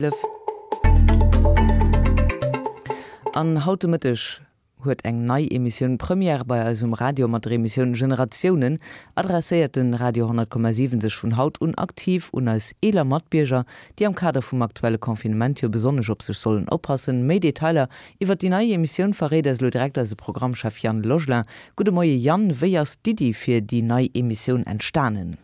11. An haut de Mëtteg huet eng nei Emissioun Première bei eis um Radio. Mat der Emissioun Generatiounen adresséiert den Radio 100,7 sech vun haut un aktiv un eis eeler Matbierger, déi am Kader vum aktuelle Confinement jo besonnesch op sech sollen oppassen. Méi Detailer iwwert déi nei Emissioun verréit eis elo direkt eise Programmchef Yann Logelin. Gudde Moie Yann, wéi ass d'Iddi fir déi nei Emissioun entstanen?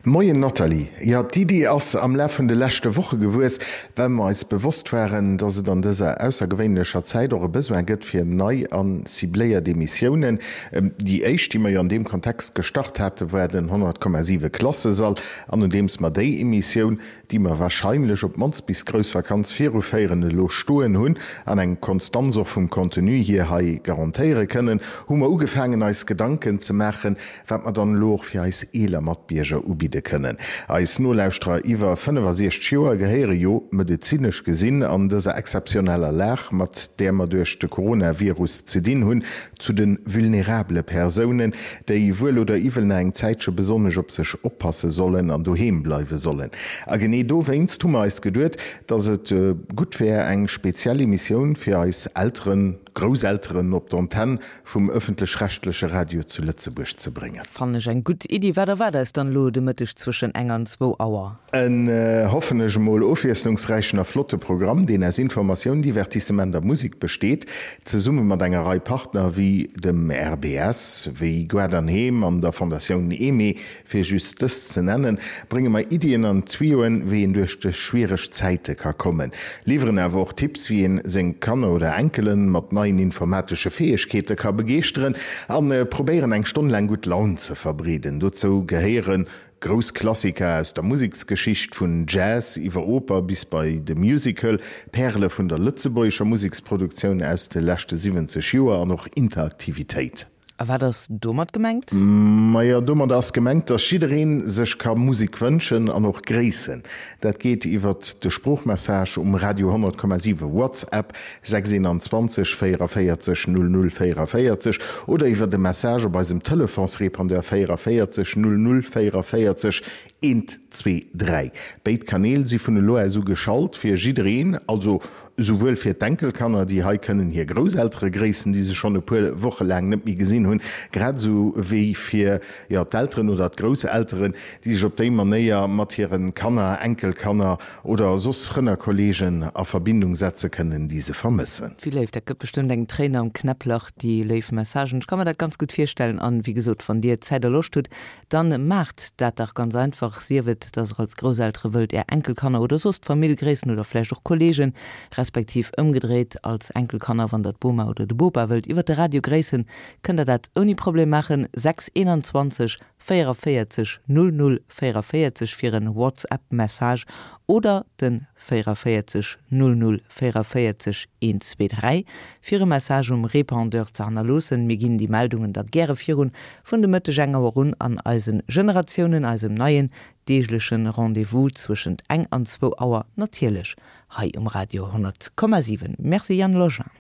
Moien Nathalie, jo d'Iddi ass am Laf vun de leschte Woche gewuess, well mer eis bewosst waren, dass et an dëser aussergewéinlecher Zäit och e Besoin gëtt fir nei a cibléiert Emissiounen. Déi éischt, déi mer jo an deem Kontext gestart hate war den 100,7 Klassesall an nodeems mer déi Emissioun, déi mer wahrscheinlech op d'mannst bis d'grouss Vakanz viruféieren, elo stoen hunn an eng Konstanz och vum Contenu hier hei garantéiere kënnen, hu mer ugefaangen eis Gedanken ze maachen, wat mer dann elo och fir eis eeler Matbierger ubidde kënnen. Eis Nolauschterer iwwer 65 Joer gehéiere jo, medezinesch gesinn, an dëser exzeptioneller Lag, mat där mer duerch de Coronavirus ze dinn hunn, zu de vulnerabele Persounen, déi wuel oder iwwel nach eng Zäitche besonnesch op sech oppasse sollen an doheem bleiwe sollen. A genee dowéinst hu mer eis geduet, dass et gutt wär, eng speziell Emissioun fir eis Elteren, Grousselteren op d'Antenn vum ëffentlech-rechtleche Radio zu Lëtzebuerg ze bréngen. Fannen ech eng gutt Iddi. Wat erwaart eis dann elo de Mëtteg zwëschen eng an zwou Auer? En, hoffen ech emol, ofwiesslungsräichen a flotte Programm, deen aus Informatioun, Divertissement a Musek besteet. Zesumme mat enger Rei Partner wéi dem RBS, wéi Gaart an Heem an der Fondatioun Aimée, Fir just dës ze nennen, brénge mer Iddien an Tuyauxen, wéi een duerch dës schwiereg Zäite ka kommen, liwweren awer och Tipps, wéi een seng Kanner oder Enkelen mat neien informatesche Fäegkeete ka begeeschteren an probéieren eng Stonn laang gutt Laun ze verbreeden. Dozou gehéiere grouss Klassiker aus der Museksgeschicht, vun Jazz iwwer Oper bis bei de Musical, Pärele vun der lëtzebuergescher Museksproduktioun aus de leschte 70 Joer an och Interaktivitéit. A wat ass domat gemengt? Majo, domat ass gemengt, dass jiddereen sech ka Musek wënschen an och gréissen. Dat geet iwwert de Sproochmessage um Radio 100,7 WhatsApp 6 21 44 00 44 oder iwwert e Message op eisem Telefonsrépondeur 44 00 44 1 2 3. Béid Kanäl si vun elo aus u geschalt fir jiddereen, also esouwuel fir d'Enkelkanner, déi hei kënnen hir Grousseltere gréissen, déi se schonn e puer Woche laang net méi gesinn hunn, grad esou wéi fir, jo, d'Elteren oder d'Grousselteren, déi sech op déi Manéier mat hire Kanner, Enkelkanner oder soss Frënn a Kolleegen a Verbindung setze kënnen, déi se vermëssen. Wéi léif, dat gëtt bestëmmt eng Tréin am Knäpplach, déi léif Messagen. Ech ka mer dat ganz gutt virstellen an, wéi gesot, wann Dir Zäit a Loscht hutt, Dann maacht dat dach ganz einfach, sief et, dass der als Grousseltere wëllt är Enkelkanner oder soss d'Famill gréissen oder vläicht och Kollegen, respektiv ëmgedréit als Enkelkanner, wann der d'Boma oder de Bopa wëllt iwwert de Radio gréissen, kënnt der dat ouni Problem maachen, 6 21 44 00 44 fir en WhatsApp Message oder den 44 00 44 123 fir e Message um Répondeur ze hannerloossen. Mir ginn déi Meldungen da gäre virun vun de Mëtteg eng Auer un an eisen Generatiounen, eisem neien deeglechen Rendez-vous zwëschent eng an zwou Auer natierlech hei um Radio 100,7. Merci Yann Login.